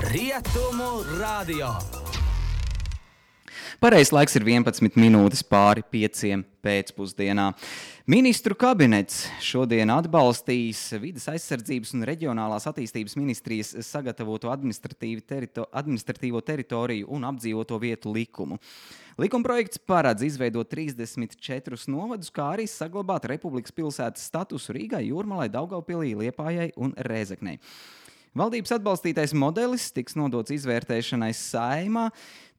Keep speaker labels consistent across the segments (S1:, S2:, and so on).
S1: Rietumu radio.
S2: Pareizais laiks ir 11 minūtes pāri 5 pēcpusdienā. Ministru kabinets šodien atbalstīs Vides aizsardzības un reģionālās attīstības ministrijas sagatavoto administratīvo teritoriju un apdzīvoto vietu likumu. Likumprojekts paredz izveidot 34 novadus, kā arī saglabāt Republikas pilsētas statusu Rīgai, Jūrmalai, Daugavpilī, Liepājai un Rēzeknei. Valdības atbalstītais modelis tiks nodots izvērtēšanai Saeimā,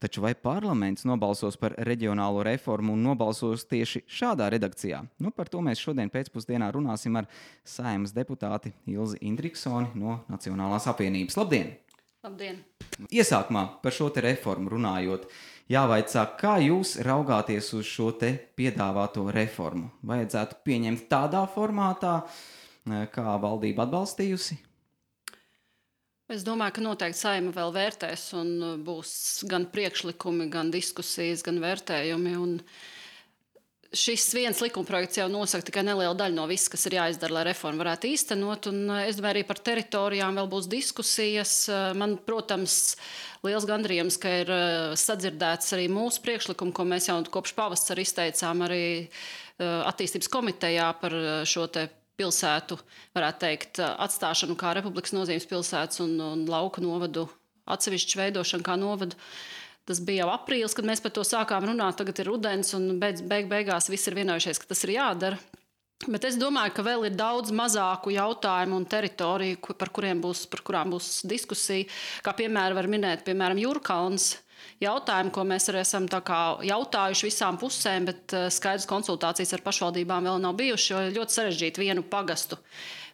S2: taču vai parlaments nobalsos par reģionālo reformu un nobalsos tieši šādā redakcijā? Par to mēs šodien pēcpusdienā runāsim ar Saeimas deputāti Ilzi Indriksoni no Nacionālās apvienības. Labdien!
S3: Labdien!
S2: Iesākumā par šo te reformu runājot, jāvaicā, kā jūs raugāties uz šo te piedāvāto reformu? Vajadzētu pieņemt tādā formātā, kā valdība atbalstījusi?
S3: Es domāju, ka noteikti Saeima vēl vērtēs un būs gan priekšlikumi, gan diskusijas, gan vērtējumi. Un šis viens likumprojekts jau nosaka tikai nelielu daļu no viss, kas ir jāizdara, lai reformu varētu īstenot. Un es domāju, arī par teritorijām vēl būs diskusijas. Man, protams, liels gandarījums, ka ir sadzirdēts arī mūsu priekšlikumu, ko mēs jau kopš pavasara izteicām arī attīstības komitejā par šo te pilsētu, varētu teikt, atstāšanu kā Republikas nozīmes pilsētas un lauku novadu atsevišķu veidošanu kā novadu. Tas bija jau aprīlis, kad mēs par to sākām runāt, tagad ir rudens un beigās viss ir vienojušies, ka tas ir jādara. Bet es domāju, ka vēl ir daudz mazāku jautājumu un teritoriju, par kurām būs diskusija, kā piemēram var minēt, Jūrkalns. Jautājumu, ko mēs arī esam jautājuši visām pusēm, bet skaidrs konsultācijas ar pašvaldībām vēl nav bijuši, jo ļoti sarežģīti vienu pagastu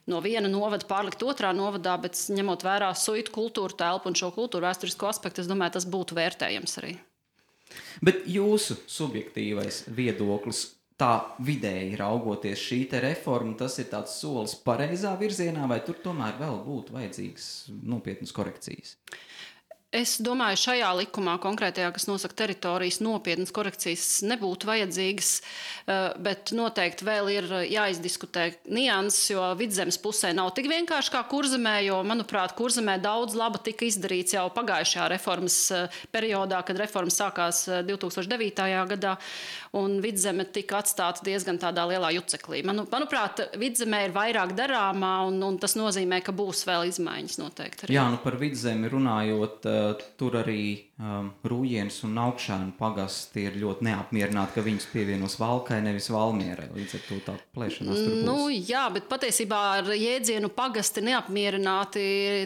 S3: no viena novada pārlikt otrā novadā, bet ņemot vērā suitu kultūru telpu un šo kultūru vēsturisko aspektu, es domāju, tas būtu vērtējams arī.
S2: Bet jūsu subjektīvais viedoklis, tā vidēji raugoties šī te reforma, tas ir tāds solis pareizā virzienā, vai tur tomēr vēl būtu vajadzīgas nopietnas korekcijas?
S3: Es domāju, šajā likumā konkrētajā, kas nosaka teritorijas, nopietnas korekcijas nebūtu vajadzīgas, bet noteikti vēl ir jāizdiskutē nianses, jo Vidzemes pusē nav tik vienkārši kā Kurzemē, jo, manuprāt, Kurzemē daudz laba tika izdarīts jau pagājušajā reformas periodā, kad reforma sākās 2009. Gadā, un Vidzeme tika atstāta diezgan tādā lielā juceklī. Manuprāt, Vidzemē ir vairāk darāmā, un tas nozīmē, ka būs vēl izmaiņas noteikti. Arī.
S2: Jā, par Vidzemi runājot, tur arī Rūjienas un Augšēnu pagasti ir ļoti neapmierināti, ka viņus pievienos Valkai, nevis Valmierai. Līdz ar to tā plēšanās tur būs.
S3: Jā, bet patiesībā ar jēdzienu pagasti neapmierināti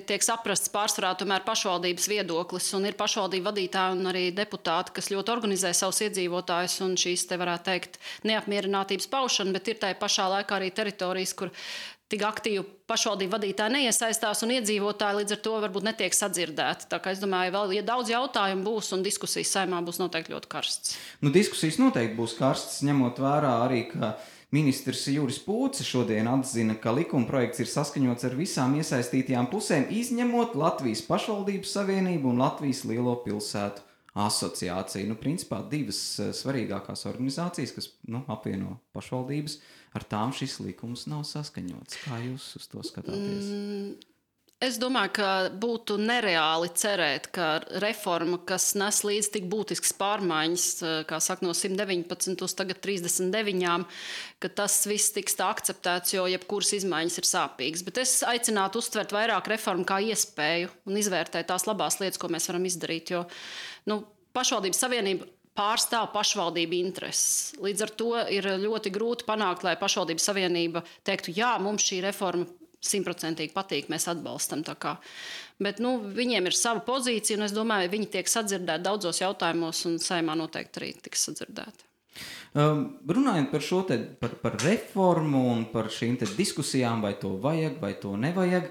S3: tiek saprasts pārsvarā tomēr pašvaldības viedoklis, un ir pašvaldību vadītāji un arī deputāti, kas ļoti organizē savus iedzīvotājus un šīs te varētu teikt neapmierinātības paušana, bet ir tai pašā laikā arī teritorijas, kur tik aktīvi pašvaldību vadītāji neiesaistās un iedzīvotāji līdz ar to varbūt netiek sadzirdēti. Tā kā es domāju, vēl ja daudz jautājumu būs un diskusijas Saeimā būs noteikti ļoti karstas.
S2: Diskusijas noteikti būs karstas, ņemot vērā arī, ka ministrs Juris Pūce šodien atzina, ka likumprojekts ir saskaņots ar visām iesaistītajām pusēm, izņemot Latvijas pašvaldības savienību un Latvijas lielo pilsētu asociāciju. Principā divas svarīgākās organizācijas, kas apvieno pašvaldības, ar tām šis likums nav saskaņots. Kā jūs uz to skatāties?
S3: Es domāju, ka būtu nereāli cerēt, ka reforma, kas nes līdz tik būtisks pārmaiņas, kā saka, no 119 uz tagad 39, ka tas viss tiks tā akceptēts, jo jebkuras izmaiņas ir sāpīgas. Bet es aicinātu uztvert vairāk reformu kā iespēju un izvērtēt tās labās lietas, ko mēs varam izdarīt, jo pašvaldības savienība pārstāv pašvaldību intereses. Līdz ar to ir ļoti grūti panākt, lai pašvaldības savienība teiktu, jā, mums šī reforma 100% patīk, mēs atbalstam. Bet viņiem ir sava pozīcija, un es domāju, viņi tiek sadzirdēti daudzos jautājumos, un Saeimā noteikti arī tiks sadzirdēti.
S2: Runājot par šo par reformu un par šīm diskusijām, vai to vajag, vai to nevajag,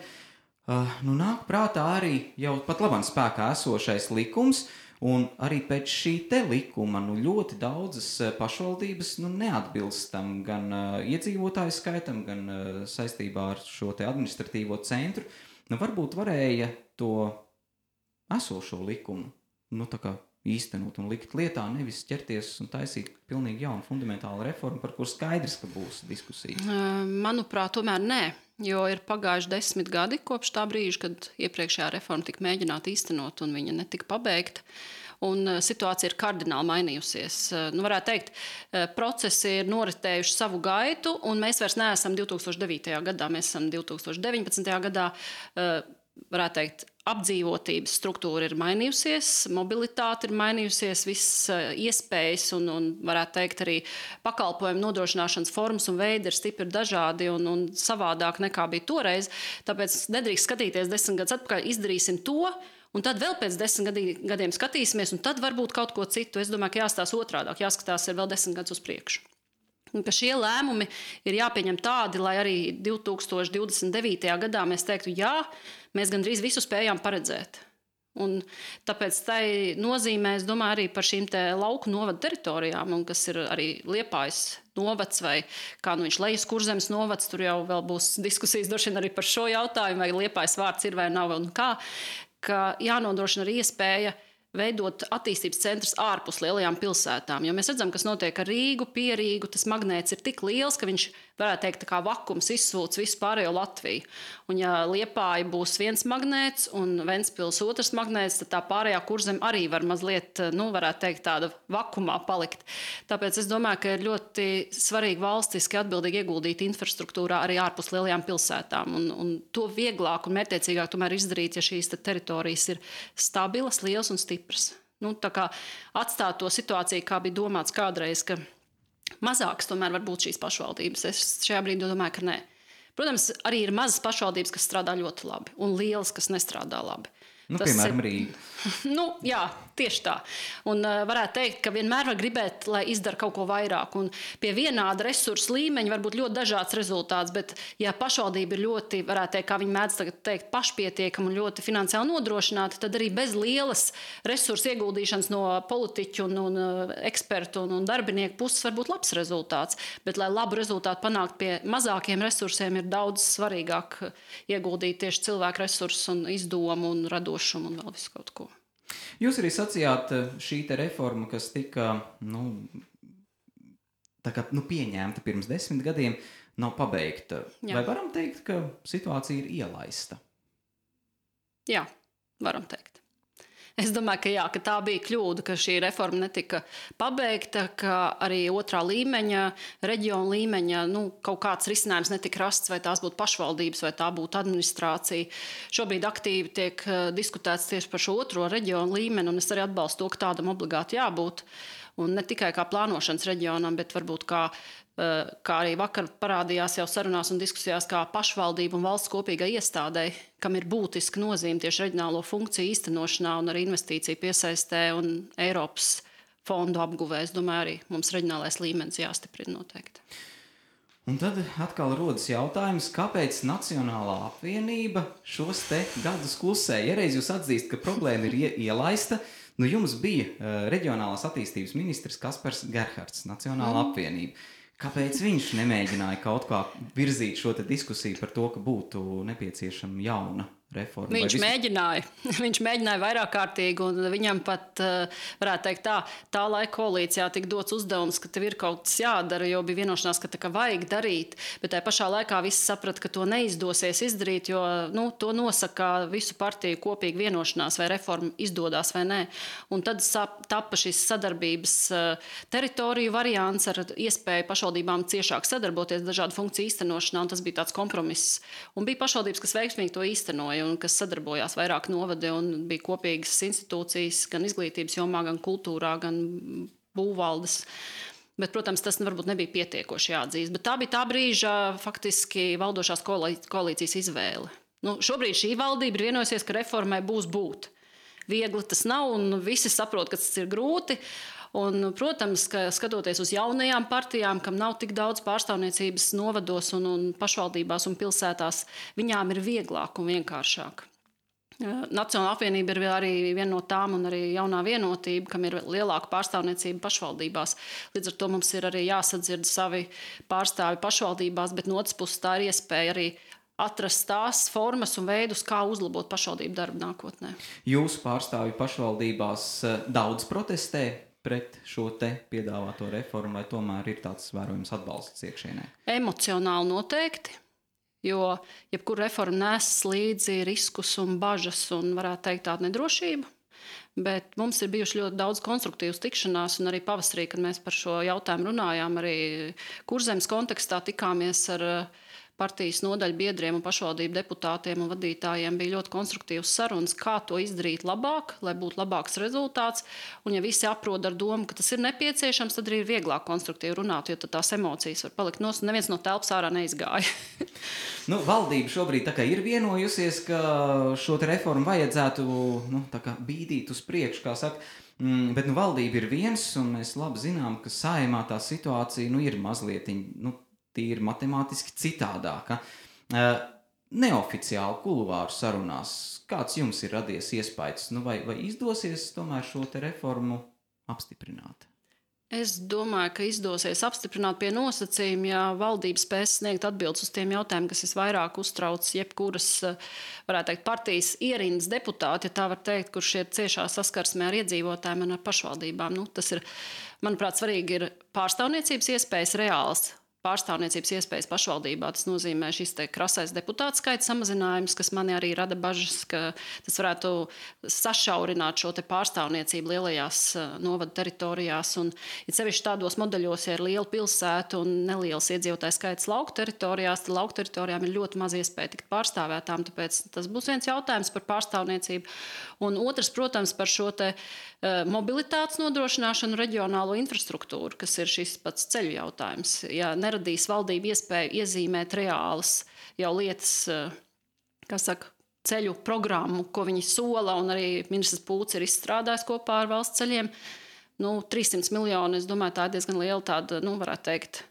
S2: nāk prātā arī jau pat labāk spēkā esošais likums, un arī pēc šī te likuma ļoti daudzas pašvaldības neatbilst tam gan iedzīvotāju skaitam, gan saistībā ar šo te administratīvo centru. Varbūt varēja to esošo likumu īstenot un likt lietā, nevis ķerties un taisīt pilnīgi jaunu fundamentālu reformu, par kur skaidrs, ka būs diskusijas.
S3: Manuprāt, tomēr nē. Jo ir pagājuši 10 gadi kopš tā brīža, kad iepriekšējā reforma tika mēģināta īstenot un viņa netika pabeigta. Un situācija ir kardināli mainījusies. Varētu teikt, procesi ir noritējuši savu gaitu, un mēs vairs neesam 2009. gadā, mēs esam 2019. gadā. Varētu teikt, apdzīvotības struktūra ir mainījusies, mobilitāte ir mainījusies, visas iespējas un varētu teikt, arī pakalpojumu nodrošināšanas formas un veidi ir stipri dažādi un savādāk nekā bija toreiz. Tāpēc nedrīkst skatīties 10 gadus atpakaļ, izdarīsim to, un tad vēl pēc 10 gadiem skatīsimies, un tad varbūt kaut ko citu. Es domāju, ka jāstāsta otrādāk, jāskatās ir vēl 10 gadus uz priekšu. Un ka šie lēmumi ir jāpieņem tādi, lai arī 2029. gadā mēs teiktu, jā, mēs gandrīz visu spējām paredzēt. Un tāpēc tai nozīmē, es domāju, arī par šīm te lauku novadu teritorijām, un kas ir arī Liepājas novads vai kā viņš Lejas Kurzemes novads, tur jau vēl būs diskusijas droši vien arī par šo jautājumu, vai Liepājas vārds ir vai nav un kā, ka jānodrošina arī iespēja veidot attīstības centrus ārpus lielajām pilsētām. Jo mēs redzam, kas notiek ar Rīgu, pie Rīgu, tas magnēts ir tik liels, ka viņš, varētu teikt, tā kā vakums izsūc visu pārējo Latviju. Un ja Liepāja būs viens magnēts un Ventspils otrs magnēts, tad tā pārējā Kurzeme arī var mazliet, varētu teikt, tāda vakumā palikt. Tāpēc es domāju, ka ir ļoti svarīgi valstiski atbildīgi ieguldīt infrastruktūrā arī ārpus lielajām pilsētām. Un to vieglāk un mērķtiecīgāk tomēr izdarīt, ja šīs teritorijas ir stabilas, lielas un stipras. Tā kā atstāt to situāciju, kā bija domāts kādreiz, ka mazākas tomēr var būt šīs pašvaldības. Es šajā brīdī domāju, ka nē. Protams, arī ir mazas pašvaldības, kas strādā ļoti labi, un lielas, kas nestrādā labi.
S2: Piemēram, Rīga.
S3: Jā, tieši tā. Un varētu teikt, ka vienmēr var gribēt, lai izdara kaut ko vairāk. Un pie vienāda resursu līmeņa var būt ļoti dažāds rezultāts, bet ja pašvaldība ir ļoti, varētu teikt, kā viņi mēdz tagad teikt, pašpietiekama un ļoti finansiāli nodrošināta, tad arī bez lielas resursu ieguldīšanas no politiķu un ekspertu un darbinieku puses var būt labs rezultāts. Bet, lai labu rezultātu panākt pie mazākiem resursiem, ir daudz svarīgāk ieguldīt tieši cilvēku resursus un izdomu un radošumu un vēl visu kaut ko.
S2: Jūs arī sacījāt, šī te reforma, kas tika pieņemta pirms 10 gadiem, nav pabeigta. Jā. Vai varam teikt, ka situācija ir ielaista?
S3: Jā, varam teikt. Es domāju, ka jā, ka tā bija kļūda, ka šī reforma netika pabeigta, ka arī otrā līmeņa, reģiona līmeņa, kaut kāds risinājums netika rasts, vai tās būtu pašvaldības, vai tā būtu administrācija. Šobrīd aktīvi tiek diskutēts tieši par šo otro reģionu līmeni, un es arī atbalstu to, ka tādam obligāti jābūt. Un ne tikai kā plānošanas reģionam, bet varbūt kā arī vakar parādījās jau sarunās un diskusijās, kā pašvaldību un valsts kopīgai iestādei, kam ir būtiska nozīme tieši reģionālo funkciju īstenošanā un arī investīciju piesaistē un Eiropas fondu apguvē. Es domāju, arī mums reģionālais līmenis jāstiprina noteikti.
S2: Un tad atkal rodas jautājums, kāpēc Nacionālā apvienība šos te gadus klusē? Ja reiz jūs atzīst, ka problēma ir ielaista, jums bija reģionālās attīstības ministrs Kaspars Gerhards, Nacionālā apvienība. Kāpēc viņš nemēģināja kaut kā virzīt šo te diskusiju par to, ka būtu nepieciešama jauna reforma? Viņš mēģināja vairāk kārtīgi, un viņam pat, varētu teikt tā laika koalīcijā tika dots uzdevums, ka tev ir kaut kas jādara, jo bija vienošanās, ka vajag darīt, bet tajā pašā laikā visi saprata, ka to neizdosies izdarīt, jo to nosaka visu partiju kopīgi vienošanās, vai reforma izdodās vai nē. Un tad tapa šis sadarbības teritoriju variants ar iespēju pašvaldībām ciešāk sadarboties dažādu funkciju īstenošanā, un tas bija tāds kompromiss. Un bija pašvaldības, kas veiksmīgi to īstenoja, un kas sadarbojās vairāk novadi, un bija kopīgas institūcijas gan izglītības jomā, gan kultūrā, gan būvvaldes. Bet, protams, tas varbūt nebija pietiekoši jāatzīst. Bet tā bija tā brīža faktiski valdošās koalīcijas izvēle. Šobrīd šī valdība ir vienojusies, ka reformai būs būt. Viegli tas nav, un visi saprot, ka tas ir grūti. Un, protams, ka skatoties uz jaunajām partijām, kam nav tik daudz pārstāvniecības novados un pašvaldībās un pilsētās, viņām ir vieglāk un vienkāršāk. Nacionālā apvienība ir arī viena no tām, un arī jaunā vienotība, kam ir lielāka pārstāvniecība pašvaldībās. Līdz ar to mums ir arī jāsadzird savi pārstāvi pašvaldībās, bet no otras puses tā ir iespēja arī atrast tās formas un veidus, kā uzlabot pašvaldību darbu nākotnē. Jūsu pārstāvi pašvaldībās daudz protestē pret šo te piedāvāto reformu, vai tomēr ir tāds vērojams atbalsts iekšienē?
S3: Emocionāli noteikti, Jo jebkura reforma nes līdzi riskus un bažas un, varētu teikt, tādu nedrošību. Bet mums ir bijuši ļoti daudz konstruktīvas tikšanās, un arī pavasarī, kad mēs par šo jautājumu runājām, arī Kurzemes kontekstā tikāmies ar partijas nodaļu biedriem un pašvaldību deputātiem un vadītājiem, bija ļoti konstruktīvas sarunas, kā to izdarīt labāk, lai būtu labāks rezultāts. Un ja visi aprod ar domu, ka tas ir nepieciešams, tad arī ir vieglāk konstruktīvi runāt, jo tad tās emocijas var palikt nos, un neviens no telpas ārā neizgāja.
S2: Valdība šobrīd tā kā ir vienojusies, ka šo te reformu vajadzētu tā kā bīdīt uz priekšu, kā saka. Bet valdība ir viens, un mēs labi zinām, ka Saeimā tā situācija ir mazliet tīri matemātiski citādāka. Neoficiāli kuluāru sarunās, kāds jums ir radies iespējas, vai izdosies tomēr šo te reformu apstiprināt?
S3: Es domāju, ka izdosies apstiprināt pie nosacījuma, ja valdība spēs sniegt atbildes uz tiem jautājumiem, kas visvairāk uztrauc jebkuras, varētu teikt, partijas ierindas deputāti, ja tā var teikt, kurš ir ciešā saskarsmē ar iedzīvotājiem un ar pašvaldībām. Tas ir, manuprāt, svarīgi ir pārstāvniecības iespējas reāls. Pārstāvniecības iespējas pašvaldībā. Tas nozīmē šis krasais deputātu skaita samazinājums, kas manī arī rada bažas, ka tas varētu sašaurināt šo pārstāvniecību lielajās novadu teritorijās. Un, ja sevišķi tādos modeļos, ja ir liela pilsēta un neliels iedzīvotāju skaits lauku teritorijās, tad lauku teritorijām ir ļoti maz iespēja tikt pārstāvētām. Tāpēc tas būs viens jautājums par pārstāvniecību. Un otrs, protams, par šo mobilitātes nodrošināšanu, reģionālo infrastruktūru, kas ir šis pats ceļu jautājums. Ja neradīs valdība iespēju iezīmēt reālas jau lietas, ceļu programmu, ko viņi sola, un arī ministrs Pūts ir izstrādājis kopā ar valsts ceļiem. 300 miljoni, es domāju, tā ir diezgan liela tāda, varētu teikt,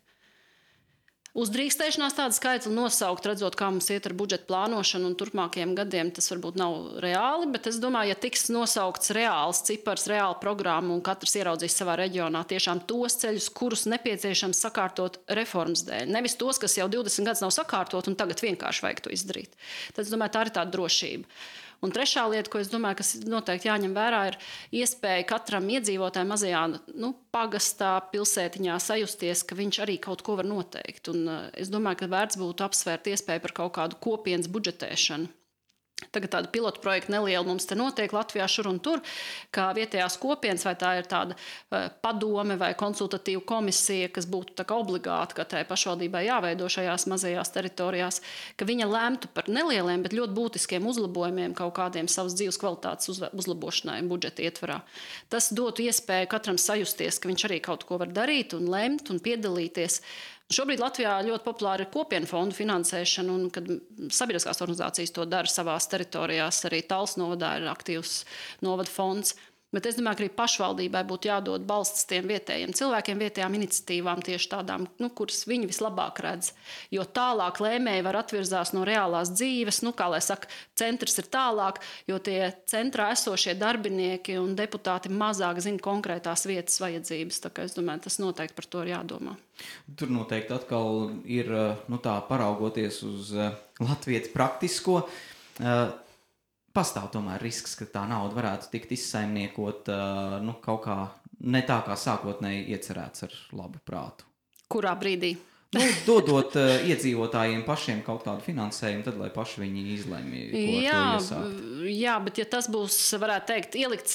S3: uzdrīkstēšanās tāda skaitli nosaukt, redzot, kā mums iet ar budžeta plānošanu un turpmākajiem gadiem, tas varbūt nav reāli, bet es domāju, ja tiks nosaukts reāls cipars, reāla programma un katrs ieraudzīs savā reģionā tiešām tos ceļus, kurus nepieciešams sakārtot reformas dēļ. Nevis tos, kas jau 20 gadus nav sakārtot un tagad vienkārši vajag to izdarīt. Tad es domāju, tā ir tāda drošība. Un trešā lieta, ko es domāju, kas noteikti jāņem vērā, ir iespēja katram iedzīvotājam mazajā pagastā, pilsētiņā sajusties, ka viņš arī kaut ko var noteikt. Un es domāju, ka vērts būtu apsvērt iespēju par kaut kādu kopienas budžetēšanu. Tagad tāda pilotu projekta neliela mums te notiek Latvijā šur un tur, kā vietējās kopienas, vai tā ir tāda padome vai konsultatīva komisija, kas būtu tā kā obligāti katrai pašvaldībai jāveido šajās mazajās teritorijās, ka viņa lemtu par nelieliem, bet ļoti būtiskiem uzlabojumiem kaut kādiem savas dzīves kvalitātes uzlabošanai budžeta ietvarā. Tas dotu iespēju katram sajusties, ka viņš arī kaut ko var darīt un lemt un piedalīties. Šobrīd Latvijā ļoti populāra ir kopienu fondu finansēšana, un kad sabiedriskās organizācijas to dara savās teritorijās, arī Talsu novadā ir aktīvs novada fonds. Bet es domāju, ka arī pašvaldībai būtu jādod balsts tiem vietējiem cilvēkiem, vietējām iniciatīvām, tieši tādām, kuras viņi vislabāk redz. Jo tālāk lēmēji var atvirzās no reālās dzīves, kā lai saka, centrs ir tālāk, jo tie centrā esošie darbinieki un deputāti mazāk zina konkrētās vietas vajadzības. Tā kā es domāju, tas noteikti par to ir jādomā.
S2: Tur noteikti atkal ir, tā paraugoties uz latviešu praktisko, pastāv tomēr risks, ka tā nauda varētu tikt izsaimniekot kaut kā ne tā, kā sākotnēji iecerēts ar labu prātu.
S3: Kurā brīdī?
S2: Dodot iedzīvotājiem pašiem kaut kādu finansējumu, tad lai paši viņi izlemj, ko ar to iesākt.
S3: Jā, bet ja tas būs, varētu teikt, ielikts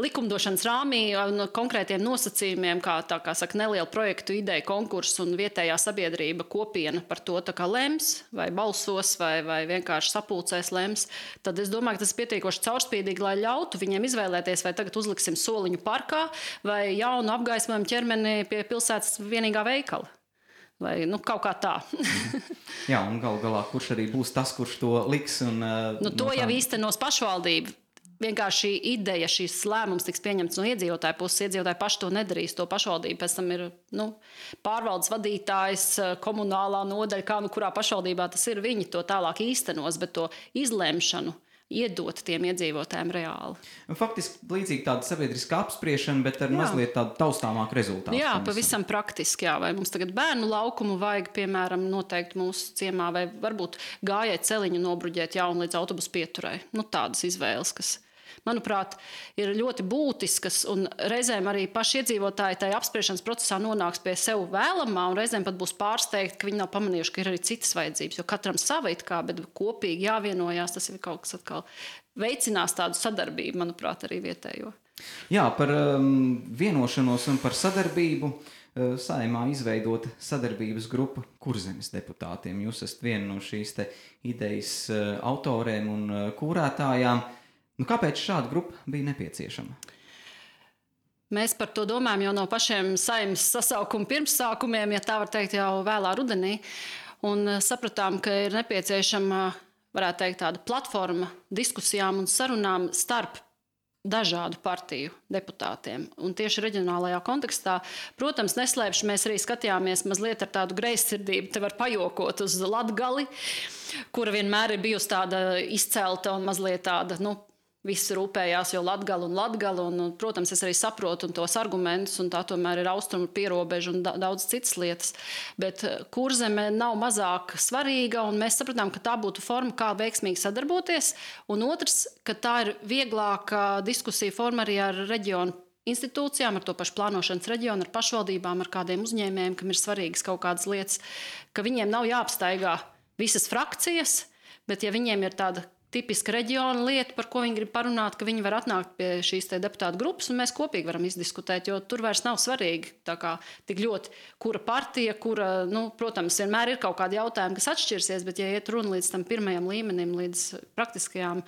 S3: likumdošanas rāmī un konkrētiem nosacījumiem, kā saka, neliela projektu ideja, konkurss un vietējā sabiedrība kopiena par to tā kā lems, vai balsos, vai vienkārši sapulcēs lems, tad es domāju, ka tas ir pietiekoši caurspīdīgi, lai ļautu viņiem izvēlēties, vai tagad uzliksim soliņu parkā, vai jaunu apgaismojumu ķermeni pie pilsētas vienīgā veikala. Vai kaut kā tā.
S2: Jā, un galu galā, kurš arī būs tas, kurš to liks?
S3: To jau īstenos pašvaldība. Vienkārši šī ideja, šīs lēmums tiks pieņemts no iedzīvotāju puses. Iedzīvotāji paši to nedarīs. To pašvaldība pēc tam ir pārvaldes vadītājs, komunālā nodaļa, kā kurā pašvaldībā tas ir. Viņi to tālāk īstenos, bet to izlemšanu iedot tiem iedzīvotājiem reāli.
S2: Faktiski līdzīgi tāda sabiedriska apspriešana, bet ar mazliet tādu taustāmāku rezultātu.
S3: Jā, pavisam praktiski. Jā. Vai mums tagad bērnu laukumu vajag, piemēram, noteikti mūsu ciemā, vai varbūt gājēji celiņu nobruģēt jaunu līdz autobusu pieturai. Tādas izvēles, kas manuprāt, ir ļoti būtiskas, un reizēm arī paši iedzīvotāji tajā apspriešanas procesā nonāks pie sev vēlamā, un reizēm pat būs pārsteigti, ka viņi nav pamanījuši, ka ir arī citas vajadzības, jo katram sava it kā, bet kopīgi jāvienojās, tas ir kaut kas atkal veicinās tādu sadarbību, manuprāt, arī vietējo.
S2: Jā, par vienošanos un par sadarbību. Saeimā izveidota sadarbības grupa Kurzemes deputātiem. Jūs esat viena no šīs te idejas autoriem un kūrētājām. Kāpēc šāda grupa bija nepieciešama?
S3: Mēs par to domājam jau no pašiem Saeimas sasaukuma pirmsākumiem, ja tā var teikt, jau vēlā rudenī. Un sapratām, ka ir nepieciešama, varētu teikt, tāda platforma diskusijām un sarunām starp dažādu partiju deputātiem. Un tieši reģionālajā kontekstā, protams, neslēpšu, mēs arī skatījāmies mazliet ar tādu greizsirdību, te var pajokot uz Latgali, kura vienmēr ir bijusi tāda izcelta un mazliet tāda, visi rūpējās jau Latgali, un, protams, es arī saprotu tos argumentus, un tā tomēr ir austrumu pierobeža un daudz citas lietas. Bet Kurzeme nav mazāk svarīga, un mēs sapratām, ka tā būtu forma, kā veiksmīgi sadarboties, un otrs, ka tā ir vieglāka diskusija forma arī ar reģionu institūcijām, ar to pašu plānošanas reģionu, ar pašvaldībām, ar kādiem uzņēmējiem, kam ir svarīgas kaut kādas lietas, ka viņiem nav jāapstaigā visas frakcijas, bet ja viņiem ir tāda tipiska reģiona lieta, par ko viņi grib parunāt, ka viņi var atnākt pie šīs deputātu grupas, un mēs kopīgi varam izdiskutēt, jo tur vairs nav svarīgi tik ļoti, kura partija, protams, vienmēr ir kaut kādi jautājumi, kas atšķirsies, bet ja iet runa līdz tam pirmajam līmenim, līdz praktiskajām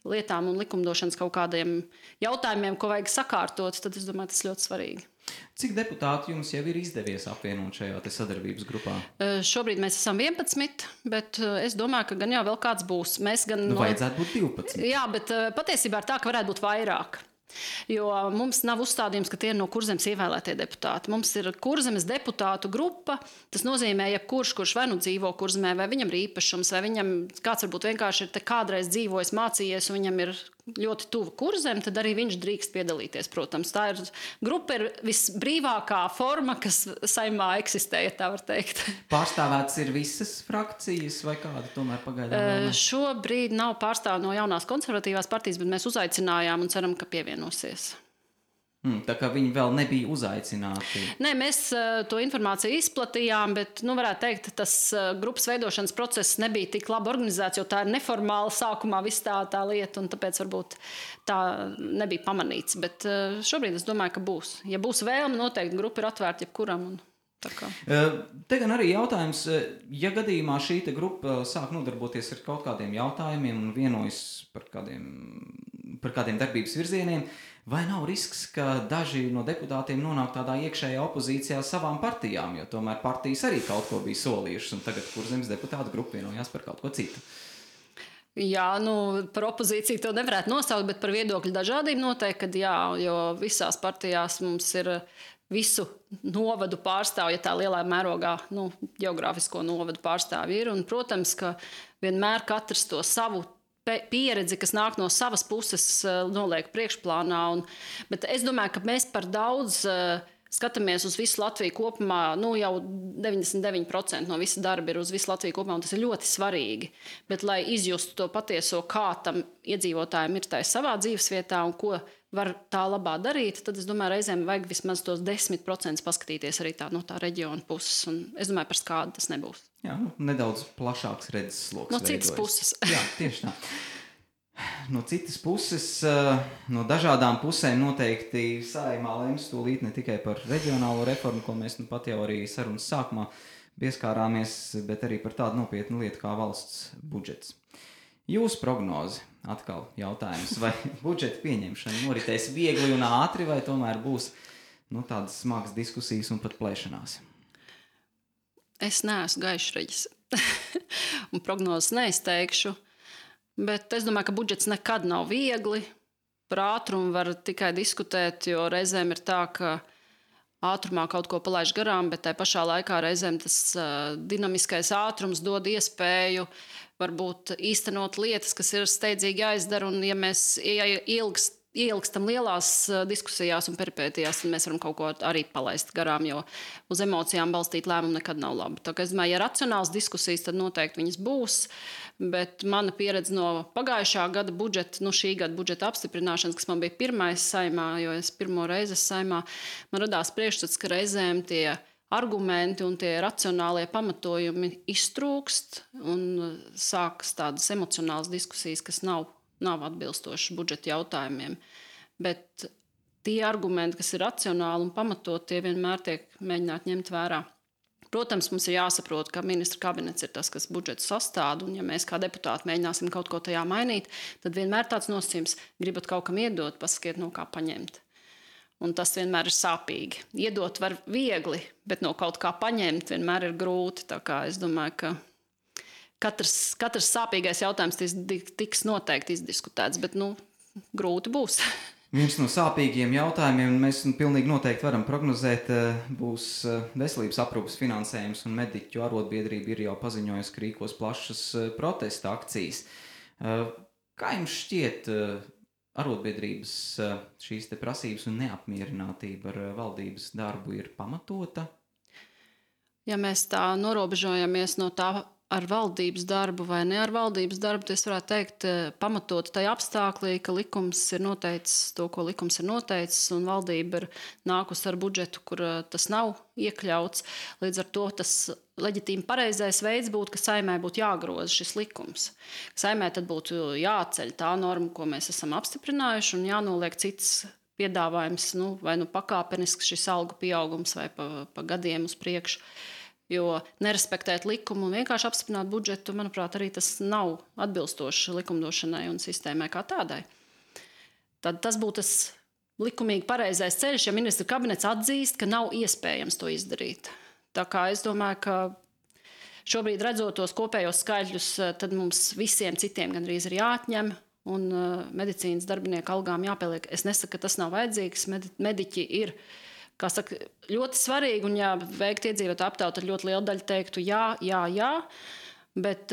S3: lietām un likumdošanas kaut kādiem jautājumiem, ko vajag sakārtot, tad es domāju, tas ļoti svarīgi.
S2: Cik deputāti jums jau ir izdevies apvienot šajā sadarbības grupā?
S3: Šobrīd mēs esam 11, bet es domāju, ka gan jau vēl kāds būs.
S2: Vajadzētu būt 12.
S3: Jā, bet patiesībā ir tā, ka varētu būt vairāk. Jo mums nav uzstādījums, ka tie ir no Kurzemes ievēlētie deputāti. Mums ir Kurzemes deputātu grupa. Tas nozīmē, ja kurš vai nu dzīvo Kurzemē, vai viņam ir īpašums, vai viņam kāds varbūt vienkārši ir te kādreiz dzīvojis, mācījies, un viņam ir ļoti tuva Kurzeme, tad arī viņš drīkst piedalīties, protams. Tā grupa ir visbrīvākā forma, kas Saeimā eksistē, ja tā var teikt.
S2: Pārstāvētas ir visas frakcijas vai kāda tomēr pagaidām?
S3: Šobrīd nav pārstāv no jaunās konservatīvās partijas, bet mēs uzaicinājām un ceram, ka pievienosies.
S2: Tā kā viņi vēl nebija uzaicināti.
S3: Nē, mēs to informāciju izplatījām, bet, varētu teikt, tas grupas veidošanas process nebija tik labi organizēts, jo tā ir neformāla sākumā viss tā lieta, un tāpēc varbūt tā nebija pamanīts. Bet šobrīd es domāju, ka būs. Ja būs vēlme, noteikti grupa ir atvērta jebkuram.
S2: Te gan arī jautājums, ja gadījumā šī grupa sāk nodarboties ar kaut kādiem jautājumiem un vienojas par kādiem darbības virzieniem, vai nav risks, ka daži no deputātiem nonāk tādā iekšējā opozīcijā savām partijām, jo tomēr partijas arī kaut ko bija solījušas, un tagad Kurzemes deputātu grupa vienojās par kaut ko citu?
S3: Jā, par opozīciju to nevarētu nosaukt, bet par viedokļu dažādību noteikti, kad jā, jo visās partijās mums ir visu novadu pārstāvju, ja tā lielā mērogā, geogrāfisko novadu pārstāvju ir, un, protams, ka vienmēr katrs to savu pieredzi, kas nāk no savas puses, noliek priekšplānā. Bet es domāju, ka mēs par daudz skatāmies uz visu Latviju kopumā, jau 99% no visa darba ir uz visu Latviju kopumā, un tas ir ļoti svarīgi. Bet, lai izjustu to patieso, kā tam iedzīvotājiem ir tā savā dzīvesvietā un ko var tā labā darīt, tad es domāju, reizēm vajag vismaz tos 10% paskatīties arī no tā reģiona puses. Un es domāju, par skādu tas nebūs.
S2: Jā, nedaudz plašāks redzesloks.
S3: No citas puses.
S2: Jā, tieši tā. No citas puses, no dažādām pusēm noteikti Saeimā lems tūlīt ne tikai par reģionālo reformu, ko mēs pat jau arī sarunas sākumā pieskārāmies, bet arī par tādu nopietnu lietu kā valsts budžets. Jūsu prognoze, atkal jautājums, vai budžeta pieņemšana noritēs viegli un ātri, vai tomēr būs tādas smagas diskusijas un pat plēšanās?
S3: Es neesmu gaišreģis un prognozes neizteikšu, bet es domāju, ka budžets nekad nav viegli. Par ātrumu var tikai diskutēt, jo reizēm ir tā, ka ātrumā kaut ko palaiž garām, bet tajā pašā laikā reizēm tas dinamiskais ātrums dod iespēju varbūt īstenot lietas, kas ir steidzīgi jāizdara, un ja mēs ilgst ieilgstam lielās diskusijās un peripētijās, tad mēs varam kaut ko arī palaist garām, jo uz emocijām balstīt lēmumu nekad nav labi. Tā kā es domāju, ja racionāls diskusijas, tad noteikti viņas būs, bet mana pieredze no pagājušā gada budžeta, šī gada budžeta apstiprināšanas, kas man bija pirmais saimā, jo es pirmo reizi saimā, man radās priekšstats, ka reizēm tie argumenti un tie racionālie pamatojumi iztrūkst un sākas tādas emocionālas diskusijas, kas nav atbilstoši budžeta jautājumiem. Bet tie argumenti, kas ir racionāli un pamatot, tie vienmēr tiek mēģināti ņemt vērā. Protams, mums ir jāsaprot, ka ministra kabinets ir tas, kas budžetu sastāda, un ja mēs kā deputāti mēģināsim kaut ko tajā mainīt, tad vienmēr tāds nosacījums gribat kaut kam iedot, pasakiet, no kā paņemt. Un tas vienmēr ir sāpīgi. Iedot var viegli, bet no kaut kā paņemt vienmēr ir grūti. Tā kā es domāju, ka katrs sāpīgais jautājums tiks noteikti izdiskutēts, bet grūti būs.
S2: Viens no sāpīgiem jautājumiem, mēs pilnīgi noteikti varam prognozēt, būs veselības aprūpes finansējums, un mediķu arotbiedrība ir jau paziņojusi, ka rīkos plašas protesta akcijas. Kā jums šķiet arotbiedrības šīs te prasības un neapmierinātība ar valdības darbu ir pamatota?
S3: Ja mēs tā norobežojamies no tā ar valdības darbu vai ne ar valdības darbu, tad es varētu teikt pamatot tajā apstāklī, ka likums ir noteicis to, ko likums ir noteicis, un valdība ir nākusi ar budžetu, kur tas nav iekļauts. Līdz ar to tas leģitīmi pareizais veids būtu, ka Saeimai būtu jāgroza šis likums. Saeimai tad būtu jāceļ tā norma, ko mēs esam apstiprinājuši, un jānoliek cits piedāvājums, vai pakāpenisks šis algu pieaugums vai pa gadiem uz priekšu. Jo nerespektēt likumu un vienkārši apstiprināt budžetu, manuprāt, arī tas nav atbilstoši likumdošanai un sistēmai kā tādai. Tad tas būtu tas likumīgi pareizais ceļš, ja ministra kabinets atzīst, ka nav iespējams to izdarīt. Tā kā es domāju, ka šobrīd redzot tos kopējos skaļļus, tad mums visiem citiem gandrīz ir jāatņem un medicīnas darbinieku algām jāpieliek. Es nesaku, ka tas nav vajadzīgs, mediķi ir kā saka, ļoti svarīgi, un ja veikt iedzīvotāju aptauju, tad ļoti liela daļa teiktu jā, bet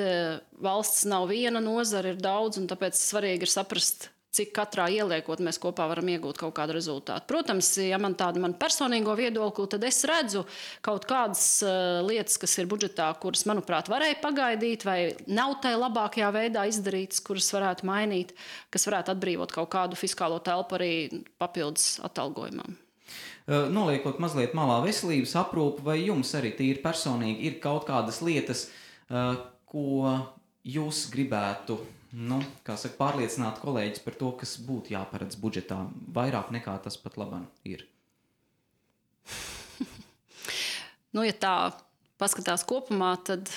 S3: valsts nav viena nozara, ir daudz, un tāpēc svarīgi ir saprast, cik katrā ieliekot mēs kopā varam iegūt kaut kādu rezultātu. Protams, ja man personīgo viedokli, tad es redzu kaut kādas lietas, kas ir budžetā, kuras, manuprāt, varēja pagaidīt, vai nav tai labākajā veidā izdarītas, kuras varētu mainīt, kas varētu atbrīvot kaut kādu fiskālo telpu arī papildus atalgojumam.
S2: Noliekot mazliet malā veselības aprūpi, vai jums arī tīri personīgi ir kaut kādas lietas, ko jūs gribētu, pārliecināt kolēģis par to, kas būtu jāparedz budžetā, vairāk nekā tas pat labam ir?
S3: Ja tā paskatās kopumā, tad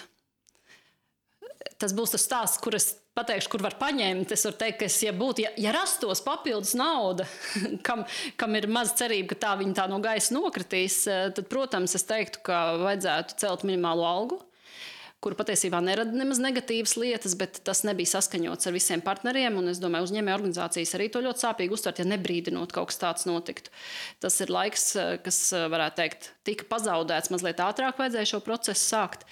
S3: tas būs tas stāsts, kur es pateikšu, kur var paņemt. Es varu teikt, ka ja rastos papildus nauda, kam ir maz cerība, ka tā viņa tā no gaisa nokritīs, tad, protams, es teiktu, ka vajadzētu celt minimālo algu, kuru patiesībā nerada nemaz negatīvas lietas, bet tas nebija saskaņots ar visiem partneriem, un es domāju, uzņēmēju organizācijas arī to ļoti sāpīgi uztvert, ja nebrīdinot kaut kas tāds notiktu. Tas ir laiks, kas, varētu teikt, tika pazaudēts, mazliet ātrāk vajadzēja šo procesu sākt.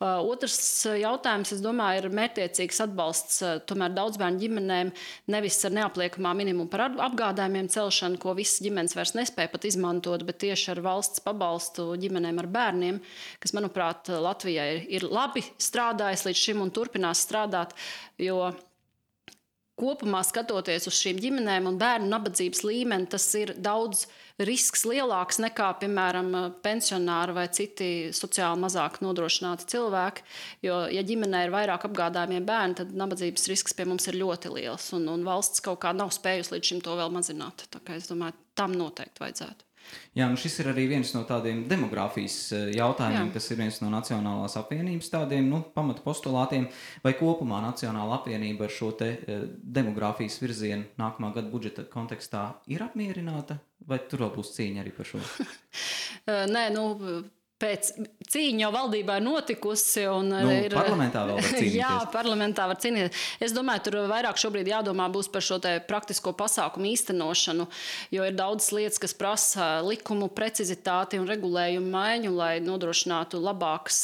S3: Otrs jautājums, es domāju, ir mērķtiecīgs atbalsts tomēr daudzbērnu ģimenēm, nevis ar neapliekamā minimumu par apgādājumiem celšanu, ko visas ģimenes vairs nespēja pat izmantot, bet tieši ar valsts pabalstu ģimenēm ar bērniem, kas, manuprāt, Latvijai ir labi strādājis līdz šim un turpinās strādāt, jo kopumā skatoties uz šīm ģimenēm un bērnu nabadzības līmeni, tas ir daudz risks lielāks nekā, piemēram, pensionāri vai citi sociāli mazāk nodrošināti cilvēki, jo, ja ģimenē ir vairāk apgādājumie bērni, tad nabadzības risks pie mums ir ļoti liels, un valsts kaut kā nav spējusi līdz šim to vēl mazināt. Tā kā es domāju, tam noteikti vajadzētu.
S2: Jā, šis ir arī viens no tādiem demogrāfijas jautājumiem, kas ir viens no Nacionālās apvienības tādiem pamata postulātiem, vai kopumā Nacionāla apvienība ar šo te demogrāfijas virzienu nākamā gada budžeta kontekstā ir apmierināta, vai tur vēl būs cīņa arī par šo?
S3: Nē, Pēc cīņa jau valdībā ir notikusi.
S2: Parlamentā vēl var cīnīties.
S3: Jā, parlamentā var cīnīties. Es domāju, tur vairāk šobrīd jādomā būs par šo te praktisko pasākumu īstenošanu, jo ir daudz lietas, kas prasa likumu precizitāti un regulējumu maiņu, lai nodrošinātu labākas,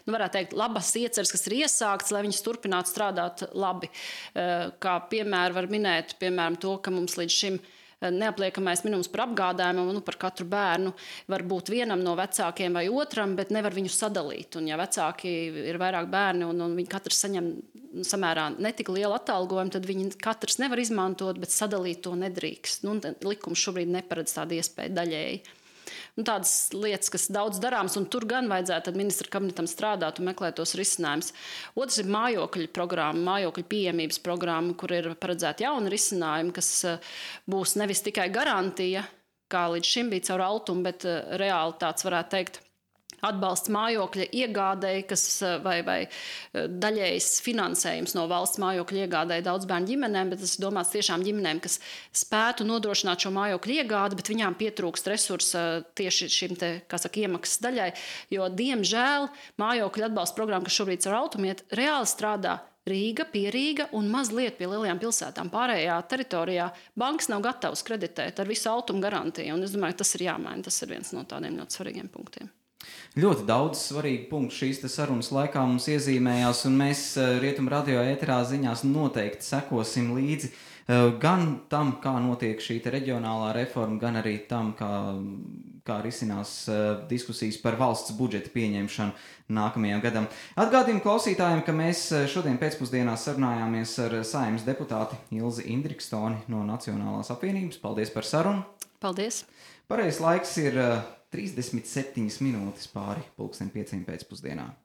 S3: varētu teikt, labas ieceres, kas ir iesāktas, lai viņas turpinātu strādāt labi. Kā piemēru var minēt, piemēram, to, ka mums līdz šim neapliekamais minimums par apgādājumu par katru bērnu var būt vienam no vecākiem vai otram, bet nevar viņu sadalīt. Un ja vecāki ir vairāk bērni un viņi katrs saņem samērā netik lielu atalgojumu, tad viņi katrs nevar izmantot, bet sadalīt to nedrīkst. Likums šobrīd neparedz tādu iespēju daļēji. Tādas lietas, kas daudz darāms, un tur gan vajadzētu ministra kabinetam strādāt un meklēt tos risinājumus. Otrs ir mājokļu programma, mājokļu pieejamības programma, kur ir paredzēti jauni risinājumi, kas būs nevis tikai garantija, kā līdz šim bija caur Altumu, bet reāli tāds varētu teikt atbalsts mājokļa iegādēji, vai daļējs finansējums no valsts mājokļa iegādēji daudz bērnu ģimenēm, bet tas ir domāts tiešām ģimenēm, kas spētu nodrošināt šo mājokļu iegādi, bet viņām pietrūkst resursa tieši šim te, iemaksas daļai, jo, diemžēl, mājokļu atbalsta programma, kas šobrīd ar Altumu iet, reāli strādā Rīga, pie Rīga un mazliet pie lielajām pilsētām. Pārējā teritorijā bankas nav gatavas kreditēt ar visu Altumu garantiju, un es domāju, tas ir jāmaina, tas ir viens no tādiem ļoti svarīgiem punktiem.
S2: Ļoti daudz svarīgu punktu šīs sarunas laikā mums iezīmējās, un mēs Rietumu radio ēterā ziņās noteikti sekosim līdzi gan tam, kā notiek šī reģionālā reforma, gan arī tam, kā risinās diskusijas par valsts budžeta pieņemšanu nākamajam gadam. Atgādinu klausītājiem, ka mēs šodien pēcpusdienā sarunājāmies ar Saeimas deputāti Ilzi Indrikstoni no Nacionālās apvienības. Paldies par sarunu!
S3: Paldies!
S2: Pareizais laiks ir 37 minūtes pāri 5:00 pēcpusdienā.